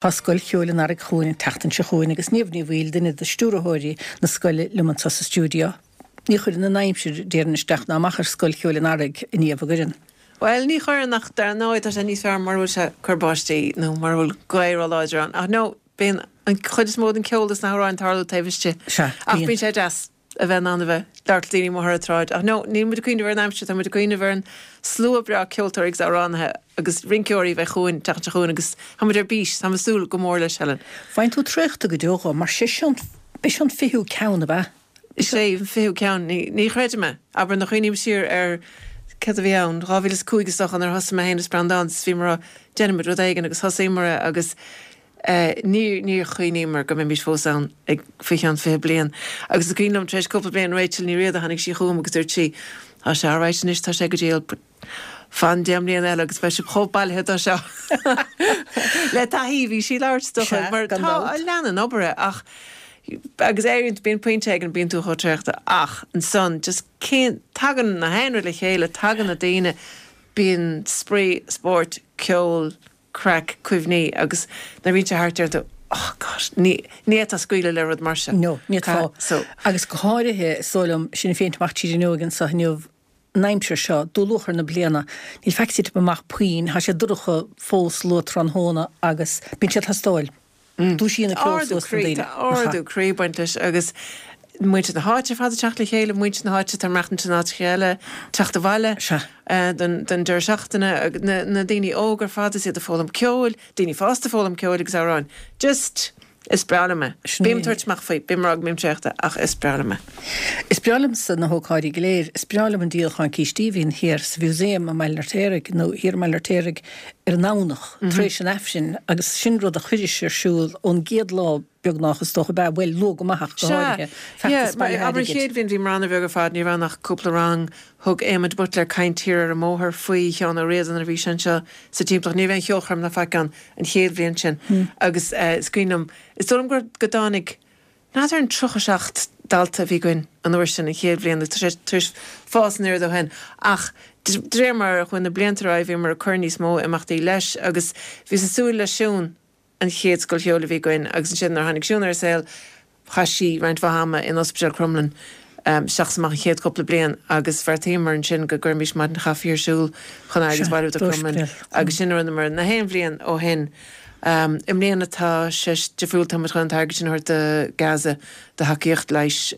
Tá Scoil Cheoil an Earraigh chugainn an tseachtain seo chugainn agus Niamh Ní Bhaoill, duine de stiúrthóirí na scoile, liom anseo sa stiúideo. Ní chuireann an aimsir, déarfainn, isteach ná amach ar Scoil Cheoil an Earraigh, a Niamh, an gcuireann? Bhuel, ní chuireann ach dar ndóigh tá sé níos fearr mura bhfuil sé ag cur báistí nó mura bhfuil gaoth róláidir ann. Ach no, bíonn an chuid is mó den ceol is na hamhráin ag tarlú taobh istigh. Sea, Ach bíonn sé deas. a bheith in ann a bheith ag labhairt le daoine amuigh ar an tsráid. Ach no, níl muid ag cuimhneamh ar an aimsir, tá muid ag cuimhneamh ar an slua breá ceoltóirí agus amhránaithe agus rinceoirí a bheidh chugainn, an tseachtain seo chugainn agus tá muid ar bís, tá muid ag súil go mór leis, Helen. Faigheann tú traochta go deo dhó, mar sé seo an, b'é seo an fichiú ceann, ab ea? Is é an fichiú ceann, ní, ní chreidim é. Abair, nuair a chuimhním siar ar céard a bhí ann, 2005 is dócha nuair a thosaigh mé féin is Breandán is bhíomar á déanfaimid rud éigin agus thosaíomar é agus Níor, níor chuimhníomar go mbeimis fós ann ag faoi cheann 20 bliain. Agus is cuimhin liom, tar éis cúpla bliain, Rachel Ní Riada, tháinig sí chugam agus dúirt sí, Tá sé alright anois, tá sé go diail, but fan 10 mbliana eile agus beidh sibh chomh bailithe dó seo. Le taithí, bhí sí ag labhairt is dócha, Sea, mar gan tá, dabht. leanann obair é ach, agus éiríonn, bíonn pointe éigin, bíonn tú chomh traochta ach ansan just cén, tagann na haon rud le chéile, tagann na daoine, bíonn spraoi, spórt, ceol, craic, cuimhní agus nuair a bhíonn sé thart deireann tú oh God, ní, ní fhéadfá scaoileadh le rud mar seo. No, ní fhéadfá. So. Agus go háirithe, is dóigh liom, sinn ag féachaint amach tríd an fhuinneoig anseo inniu, an aimsir seo, dúluachair na bliana, níl faic ag titim amach puinn, tá sé dorcha fós luath tráthnóna agus bíonn sé ag teastáil. Dúisíonn an ceol Ardú suas na croí, daoine. tá ardú croí ag baint leis agus muintir na háite ar fad ag teacht le chéile, muintir na háite atá ag maireachtaint in áiteacha eile, teacht abhaile Sea. don don deireadh seachtaine, agus na na daoine óga ar fad is iad ag foghlaim ceoil, daoine fásta ag foghlaim ceoil agus amhráin. Just, is breá liom é. Sin Bím é. ag tabhairt amach faoi, bím ag rá go mbím traochta ach is breá liom é. Is breá liomsa na hócáidí go léir. Is breá liom an díolachán cístí a bhíonn thiar sa Mhúsaem i mBaile an Fheirtéaraigh nó thiar i mBaile an Fheirtéaraigh ar an nDomhnach tar éis an Aifrinn agus sin rud a chuiris ar siúl ón gcéad lá beagnach is dócha ab ea, bhuel, luath go maith ach go Sea, háirithe, yeah, feachtas mar bailithe abair an airgid. chéad bhliain bhíomar an-bheag ar fad, ní raibh ann ach cúpla rang, thug Éamon de Buitléar caint thiar ar an mbóthar faoi Sheán Ó Riada nuair a bhí sé anseo sa timpeallacht, ní raibh aon cheolchoirm ná faic ann an chéad bhliain sin agus eh is cuimhin liom, is dóigh liom gur, go dtáinig, N'fheadar an 37 dalta a bhí againn an uair sin, an chéad bhliain, agus tá sé tar éis fás an oiread ó shin. Ach de réir mar a chuaigh na blianta ar aghaidh bhíomar ag cur níos mó imeachtaí leis agus bhíos ag súil le Siún, an chéad scoil cheoil a bhí againn agus ansin nuair a tháinig Siún ar an saol chaith sí roinnt mhaith ama in Ospidéal Crumlin isteach is amach an chéad chúpla bliain agus bheartaíomar ansin go gcuirfimis maidin chaife ar siúl chun airgead a bhailiú do Crumlin agus sin a rinneamar na haon bhliain ó shin. I mbliana tá sé difriúil, tá muid chun an t-airgead sin a thabhairt do Gaza, do thacaíocht leighis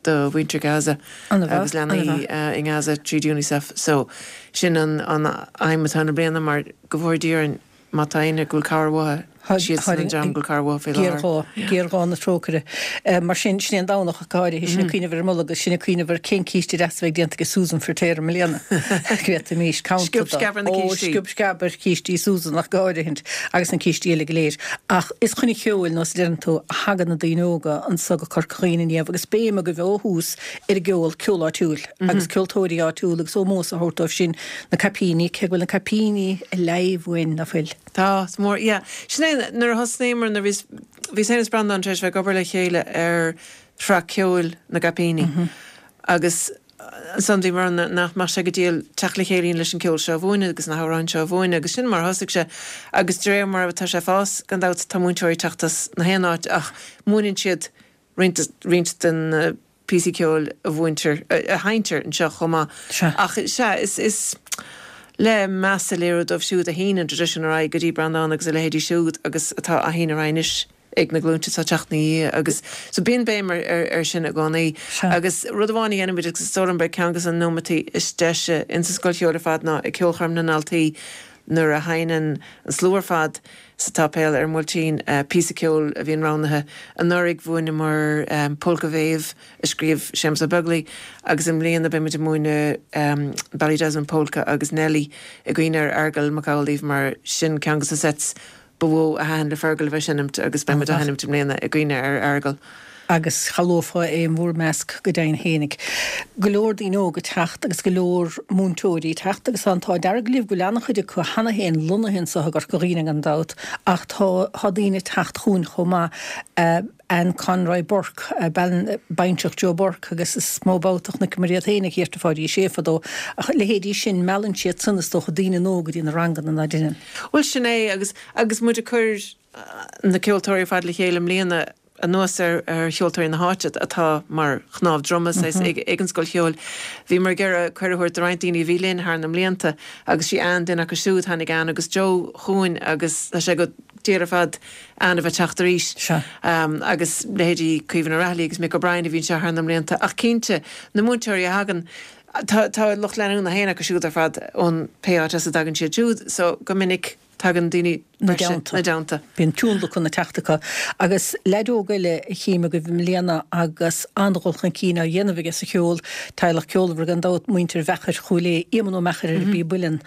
do mhuintir Gaza agus leanaí i nGaza tríd Unicef. So sin an aidhm atá ann i mbliana mar go bhfóire Dia orainn má tá éinne go bhfuil cabhair uathu, siadsan an dream go bhfuil cabhair uathu faoi láthair. Géarghá, géarghá na trócaire. Mar sin, sin é an Domhnach ach go háirithe, sinn ag cuimhneamh ar an mbolg agus sinn ag cuimhneamh ar cén císte deas a bheidh déanta ag Susan Firtéar i mbliana. Go bhféadfaimis campa Sciob sceab ar na Ó, cístí. sciob sceab ar chístí Susan ach go háirithint, agus na cístí eile go léir. Ach is chun an cheoil, nós a deireann tú, a thagann na daoine óga anso go Corca Dhuibhne a Niamh agus béim agaibh ó thús ar an gceol, ceol áitiúil agus ceoltóirí áitiúla agus ómós a thabhairt dóibh sin, na caipíní, cé go bhfuil na caipíní ag leimh uainn, ná fuil? Tá, is mór, yeah. Sin é, nuair a thosnaíomar, nuair a bhíos, bhíos féin is Breandán tar éis bheith ag obair le chéile ar shraith ceoil na gCaipíní agus ansan bhíomar ann nach mbeadh sé go diail teacht le chéile leis an ceol seo a mhúineadh agus na hamhráin seo a mhúineadh agus sin mar a thosaigh sé agus de réir mar atá sé ag fás, gan dabht, tá múinteoirí ag teacht as na haon áit ach múineann siad roinnt, roinnt de na píosaí ceoil a mhúintear, a sheinntear anseo chomh maith. Sea. Ach sea, is, is le meas a léiriú dóibh siúd a shín an traidisiún ar aghaidh go dtí Breandán agus a leithéidí siúd agus atá á shíneadh ar aghaidh anois ag na glúinte atá ag teacht ina dhiaidh agus so bíonn béim ar, ar, ar sin i gcónaí. Sea. Agus rud amháin a dhéanaimid agus is dóigh liom gurb é ceann de na nóimeataí is deise insa scoil cheoil ar fad ná ag ceolchoirm na ndaltaí nuair a sheinneann an slua ar fad sa tsáipéal ar an mBuailtín, píosa ceoil a bhíonn roghnaithe. Anuraidh mhúineamar Polca Mhéabh a scríobh Séamus Ó Beaglaoi agus i mbliana beidh muid ag múineadh Ballydesmond Polka agus Nellie i gcuimhne ar Fheargal Mac Amhlaoibh mar sin ceann de na sets ba mhó a thaitin le Fergal a bheith ag seinmt agus beidh muid á sheinmt i mbliana i gcuimhne ar Fheargal. agus cha luafá é in bhur measc go deimhin fhéinig. Go leor daoine óga ag teacht agus go leor múinteoirí ag teacht agus tá an t-ádh dearg libh go bhfuil an-chuid acu cheana féin lonnaithe anseo i gCorca Dhuibhne gan dabht ach tá tá daoine ag teacht chugainn chomh maith. Anne Conroy Burke, bean baintreach Joe Burke agus is mó babhta a chonaiceamar iad féin ag Theatre Pháidí Uí Shé fadó ach leithéidí sin meallann siad san is dócha daoine nua go dtí na ranganna ná deineann. Bhuel sin é agus agus muid ag cur. na ceoltóirí ar fad le chéile i mbliana, anuas ar cheoltóirí na háite atá mar chnámh droma saghas ag an Scoil Cheoil, bhíomar ag iarraidh cuireadh a thabhairt do roinnt daoine a bhí linn thar na mblianta agus sí Ann duine acu siúd. Tháinig Ann agus Joe chugainn agus tá sé go diail ar fad Ann a bheith teacht arís. Agus leithéidí Caoimhín Ó Raghallaigh agus Mick O'Brien a bhí anseo thar na mblianta. Ach cinnte, na múinteoirí a thagann, tá tá lucht leanúna féin acu siúd ar fad ón pé áit as a dtagann siad siúd so go minic tagann daoine 'na dteannta. 'Na dteannta. Bíonn tionlacan ag teacht acu. Agus leaid óg eile a chím agaibh i mbliana agus an-dhul chun cinn á dhéanamh aige sa cheol, teaghlach ceolmhar gan dabht, muintir Mheachair Chúil Aodha, Éamonn Ó Meachair ar an bpíob uilleann,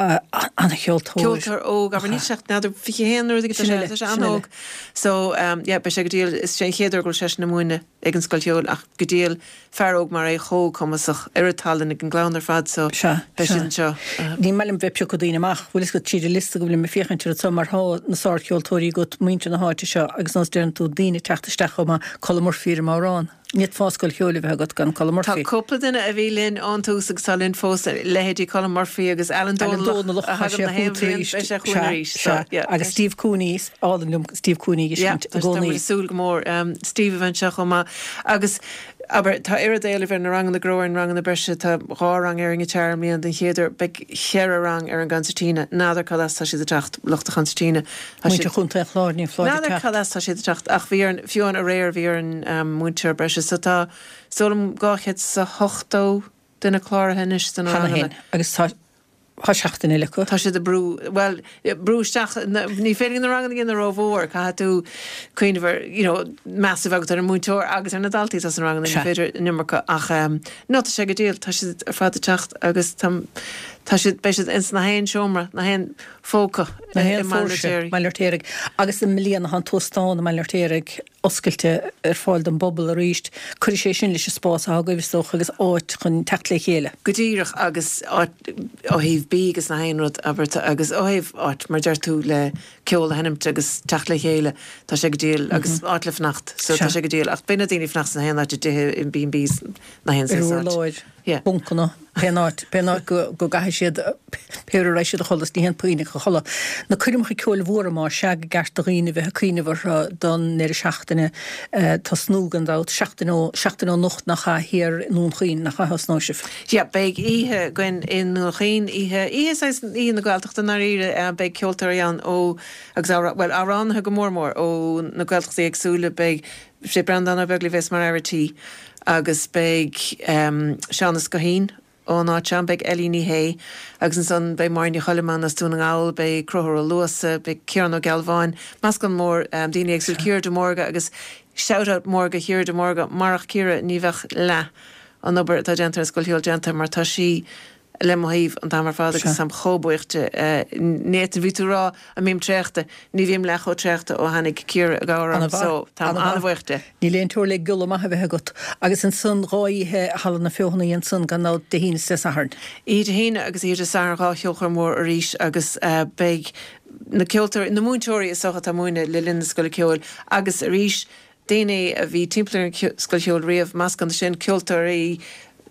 an-cheoltóir. Ceoltóir óg, abair, níl sé ach n'fheadar 21 nó rud éigin, tá sé an-óg. So, yeah, beidh sé go diail, is é an chéad uair go bhfuil seisean ag múineadh ag an Scoil Cheoil ach go diail, fear óg mar é chomh cumasach, oiread tallann ag an gclann ar fad so beidh siad anseo. Ní maith liom bheith ag piocadh daoine amach, bhfuil fhios agat, tríd an liosta go bhfuilim ag féachaint air anseo mar thá na sárcheoltóirí agat, muintir na háite seo agus nós deireann tú, daoine ag teacht isteach chomh maith, Colm Murphy ar an mbodhrán. Ní fhéadfá scoil cheoil a bheith agat gan Colm Murphy. Tá cúpla duine a bhí linn ón tús agus tá linn fós, leithéidí Colm Murphy agus Alan Dónallach a thagann na haon bhliain, beidh sé chugainn arís. Sea, sea. Agus Steve Cooney, is álainn liom Steve Cooney a fheiscint i gcónaí. Tá muid ag súil go mór Steve a bheith anseo chomh maith. Agus, abair, tá oiread éilimh ar na ranganna go raibh ar na ranganna breise, tá dhá rang ar an ngiotár i mbliana den chéad uair, beidh cheithre rang ar an gconsairtíne, n'fheadar cad as tá siad ag teacht, lucht an chonsairtíne. Muintir Chontae an Chláir, ní foláir ag teacht. N'fheadar cad as tá siad ag teacht ach bhí orainn, fiú amháin aréir bhí orainn múinteoir breise so tá, is dóigh liom, 270 duine cláraithe anois do na ranganna. Cheana féin agus tá, tá seachtain eile acu. Tá siad ag brú, bhuel, brú isteach, ní féidir na ranganna a dhéanamh rómhór, caithfidh tú cuimhneamh ar, you know, meas a bheith agat ar an múinteoir agus ar na daltaí atá sna ranganna, ní féidir an iomarca ach no, tá sé go diail, tá siad ar fad ag teacht agus tá, tá siad, beidh siad ins na haon seomra, na haon phóca i mBaile an Fheirtéaraigh. Baile an Fheirtéaraigh. Agus i mbliana tá an t-óstán i mBaile an Fheirtéaraigh oscailte ar fáil don bpobal arís. Cuirfidh sé sin leis an spás atá agaibh, is dócha, agus áit chun teacht le chéile. Go díreach, agus áit ó thaobh bídh agus na haon rud, abair, agus ó thaobh áit, mar deir tú, le ceol a sheinmt agus teacht le chéile, tá sé go diail, agus áit le fanacht, so tá sé go diail. Ach beidh na daoine ag fanacht sna haon áit, i dtithe, in B&Bs, na haon saghas áit. Ar urláir. Yeah. Buncanna, pén áit, pén áit go, go gcaithfidh siad, pé uair a raghaidh siad a chodladh, ní haon puinn a chodladh. Na coirmeacha ceoil mhóra más ea go gceart do dhaoine bheith ag cuimhneamh orthu don ndeireadh seachtaine tosnú gan dabht, seachtain ó, seachtain ó anocht nach ea, thiar i nDún Chaoin, nach ea a thosnóidh sibh? Yeah, beidh oíche againn i nDún Chaoin, oíche, oíche saghas, oíche na Gaeltachta i ndáiríre, beidh ceoltóirí ann ó, agus amhrá, bhuel, amhránaithe go mór mór ó na Gaeltachtaí éagsúla, beidh Sé Breandán Ó Beaglaoich a bheas mar fhear a' tí agus beidh Seán Ó Scoithín ón áit seo ann, beidh Ellie Ní Shé agus ansan beidh Máire Ní Choilm ann as Dún na nGall, beidh Conchúr Ó Luasa, beidh Ciarán Ó Gealbháin, meascán mór daoine éagsúla, Ciara de Mórdha agus shout out mór go Chiara de Mórdha, marach Ciara ní bheadh leath an obair atá déanta ar an Scoil Cheoil déanta mar tá sí le mo thaobh an t-am ar fad agus táim chomh buíoch di. Nathan, bhí tú ag rá an mbím traochta, ní bhím leath chomh traochta ó tháinig Ciara i gcabhair orm so táim an-bhuíoch di. Níl aon teora le giolla maith a bheith agat. Agus ansan dhá oíche i Halla na Feothanaí ansan gan dabht, Dé hAoine is Dé Sathairn. Oíche Dé hAoine agus oíche Dé Sathairn dhá cheolchoirm mhór arís agus beidh na ceoltóirí, na múinteoirí is dócha atá ag múineadh le linn na Scoile Ceoil agus arís daoine a bhí timpeall ar an Scoil Cheoil riamh, meascán de sin, ceoltóirí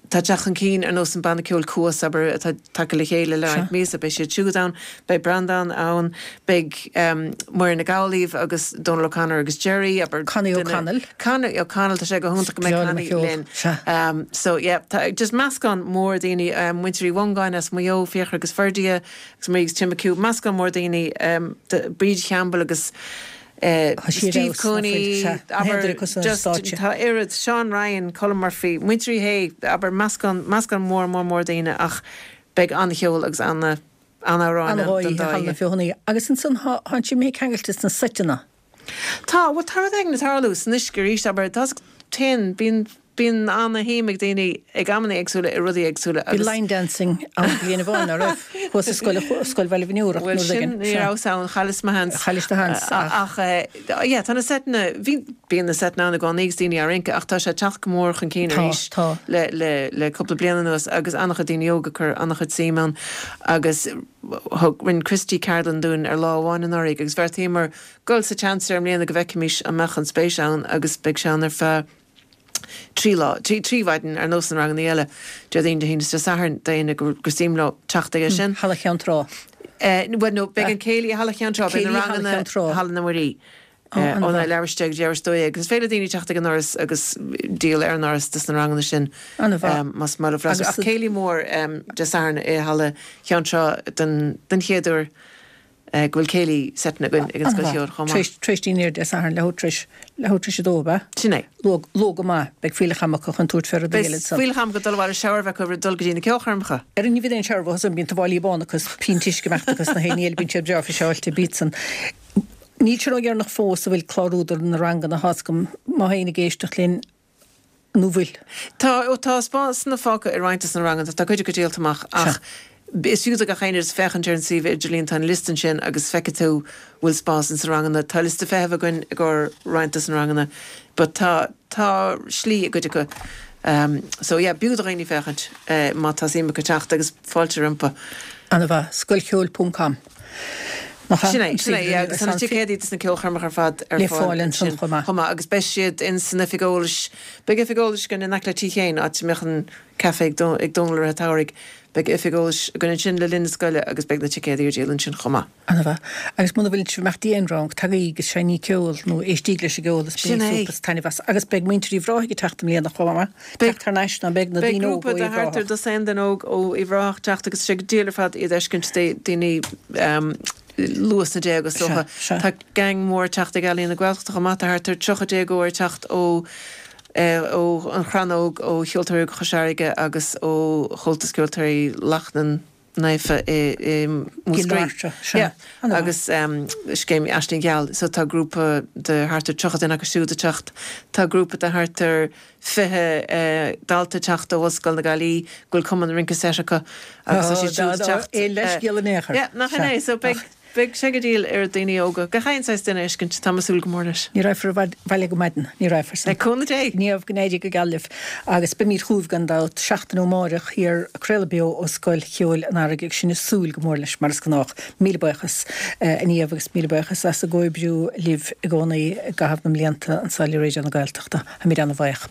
atá ag teacht chun cinn ar nós an banna ceoil Cuas, abair, atá tagtha le chéile le roinnt míosa, beidh siad siúd ann, beidh Breandán ann, beidh Muireann Nic Amhlaoibh agus Dónal O'Connor agus Gerry, abair, Connie O'Connell. Connie O'Connell, tá sé go hiontach go mbeidh Connie linn. So yeah, tá just meascán mór daoine, muintir Uí Mhongáin as Maigh Eo, Fiachra agus Ferdia, agus Marie agus Tim McHugh, meascán mór daoine, Bríd Champbell agus Steve Cooney, abair, just, tá oiread, Seán Ryan, Colm Murphy, muintir Uí Shé, abair, meascán, meascán mór, mór, mór daoine ach beidh an-cheol agus ana, an-amhráin ann don dá oíche. Feothanaí. Agus ansan thá, thánn sibh imithe ceangailte sna seiteanna. Tá, bhuel tá rud éigin ag tarlú san uisce arís, abair, tá, téann, bíonn, Bíonn ana-shuim ag daoine ag amanna éagsúla i rudaí éagsúla agus. Bhí line dancing ann bliain amháin, ná raibh? Thuas i scoil, Scoil Bhaile Bhun Iúir ach Bhuel sin, éigin. ní rabhas ann, chailleas mo sheans. Chaillis do sheans ach. Ach yeah, tá na seiteanna, bhí, bíonn na seiteanna ann i gcónaí agus daoine á rince ach tá sé ag teacht go mór chun cinn Tá, arís tá. le, le, le cúpla bliain anuas agus an-chuid daoine óga ag cur an-chuid suim ann agus thug, rinne Christy ceardlann dúinn ar lá amháin anuraidh agus bheartaíomar dul sa tseans air i mbliana go bhfeicfimis an mbeadh an spéis ann agus beidh sé ann ar feadh 3 lá, 3 mhaidin ar nós na ranganna eile, Déardaoin, Dé hAoine is Dé Sathairn, d'éinne gur suim leo teacht aige sin. Halla Cheann Trá. Bhuel, no, beidh an céilí i Halla Cheann Trá, beidh na ranganna i Halla na Muirí. Óna leathuair tar éis 10 go dtí leathuair tar éis 12. Agus is féidir le daoine teacht ag an ndoras agus díol ar an ndoras dos na ranganna sin más maith leo freastal. Ach céilí mór Dé Sathairn i Halla Cheann Trá den chéad uair go bhfuil céilí seite againn ag an Scoil Cheoil chomh maith. Tar éis dinnéir Dé Sathairn, leathuair tar éis, leathuair tar éis a dó, ab ea? Sin é. Luath, luath go maith. Beidh fuílleach ama acu chun tabhairt fé rudaí eile ansan. Beidh fuílleach ama acu dul abhaile shower a bheith acu roimh dul go dtí na ceolchoirmeacha. Ar ní bheidh aon shower uathu san, bíonn tuáillí bána acu is pínt uisce ag imeacht acu sna haon ní eile, bíonn siad breá friseáilte, bíd san. Níl sé ródheireanach fós a bhfuil clárú do na ranganna, tá's agam, má tá éinne ag éisteacht linn, nó bhfuil? Tá, ó tá spásanna fágtha i roinnt des na ranganna, tá cuid acu díolta amach ach is fiú do gach éinne just féachaint ar an suíomh idirlín, tá an liosta ansin agus feicfidh tú bhfuil spás ins na ranganna. Tá liosta feithimh againn i gcomhair roinnt des na ranganna but tá, tá slí i gcuid acu. So yeah, b'fhiú do dhaoine féachaint má tá suim acu teacht agus fáilte rompu. Ana-mhaith. Scoilcheoil ponc com. Nach ea? Sin é, sin é, yeah, agus tá na ticéadaí dos na ceolchoirmeacha ar fad ar Le fáil ansin chomh maith. Chomh maith, agus beidh siad in san oifig eolais, beidh oifig eolais againn in aice le Tigh Sheáin, áit a mbeadh an caife ag ag Dónal i rith an tsamhraidh, beidh oifig eolais againn ansin le linn na scoile agus beidh na ticéadaí ar díol ansin chomh maith. Ana-mhaith. Agus muna bhfuil sibh ag imeacht d'aon rang, tagaigí agus seinnigí ceol nó éistíg leis an gceol is Sin bainigí é. súp is taitneamh as. Agus beidh muintir Uíbh Ráthaigh ag teacht i mbliana chomh maith. Teacht thar n-ais ná beidh na Beidh daoine óga grúpa ó de Uíbh thart ar Ráthach. dosaen duine óg ó Uíbh Ráthach teacht agus tá sé go diail ar fad iad a fheiscint, daoine luath sna déaga is dócha. Sea, sea. Tá gang mór ag teacht ag Ealaín na Gaeltachta chomh maith, tá thart ar 30 déagóir ag teacht ó ó An Chrannóg, ó Cheoltóirí Óga Chois Fharraige agus ó Chomhaltas Ceoltóirí Lachnainn. Naofa i Múscraí. Sea. Agus scéim Aisling Gheal. So tá grúpa de thart ar 30 duine acu siúd ag teacht. Tá grúpa de thart ar 20 dalta ag teacht ó Ollscoil na Gaillimhe go bhfuil cumann rince seit acu agus tá siad siúd ag teacht. Aon leithscéal in aon chor. Yeah, nach in é. So beidh Beidh sé go diail oiread daoine óga, gach aon saghas duine a fheiscint, tá mé ag súil go mór leis. Ní raghfar abhaile go maidin, ní raghfar san. Le cúnamh Dé! Niamh, go n-éirí go geal libh agus beimid chugaibh gan dabht seachtain ó amáireach thiar ag craoladh beo ó Scoil Cheoil an Earraigh agus sinn ag súil go mór leis mar is gnách. Míle buíochas a Niamh agus míle buíochas as an gcomhoibriú libh i gcónaí i gcaitheamh na mblianta anseo le Raidió na Gaeltachta. Táimid ana-bhuíoch.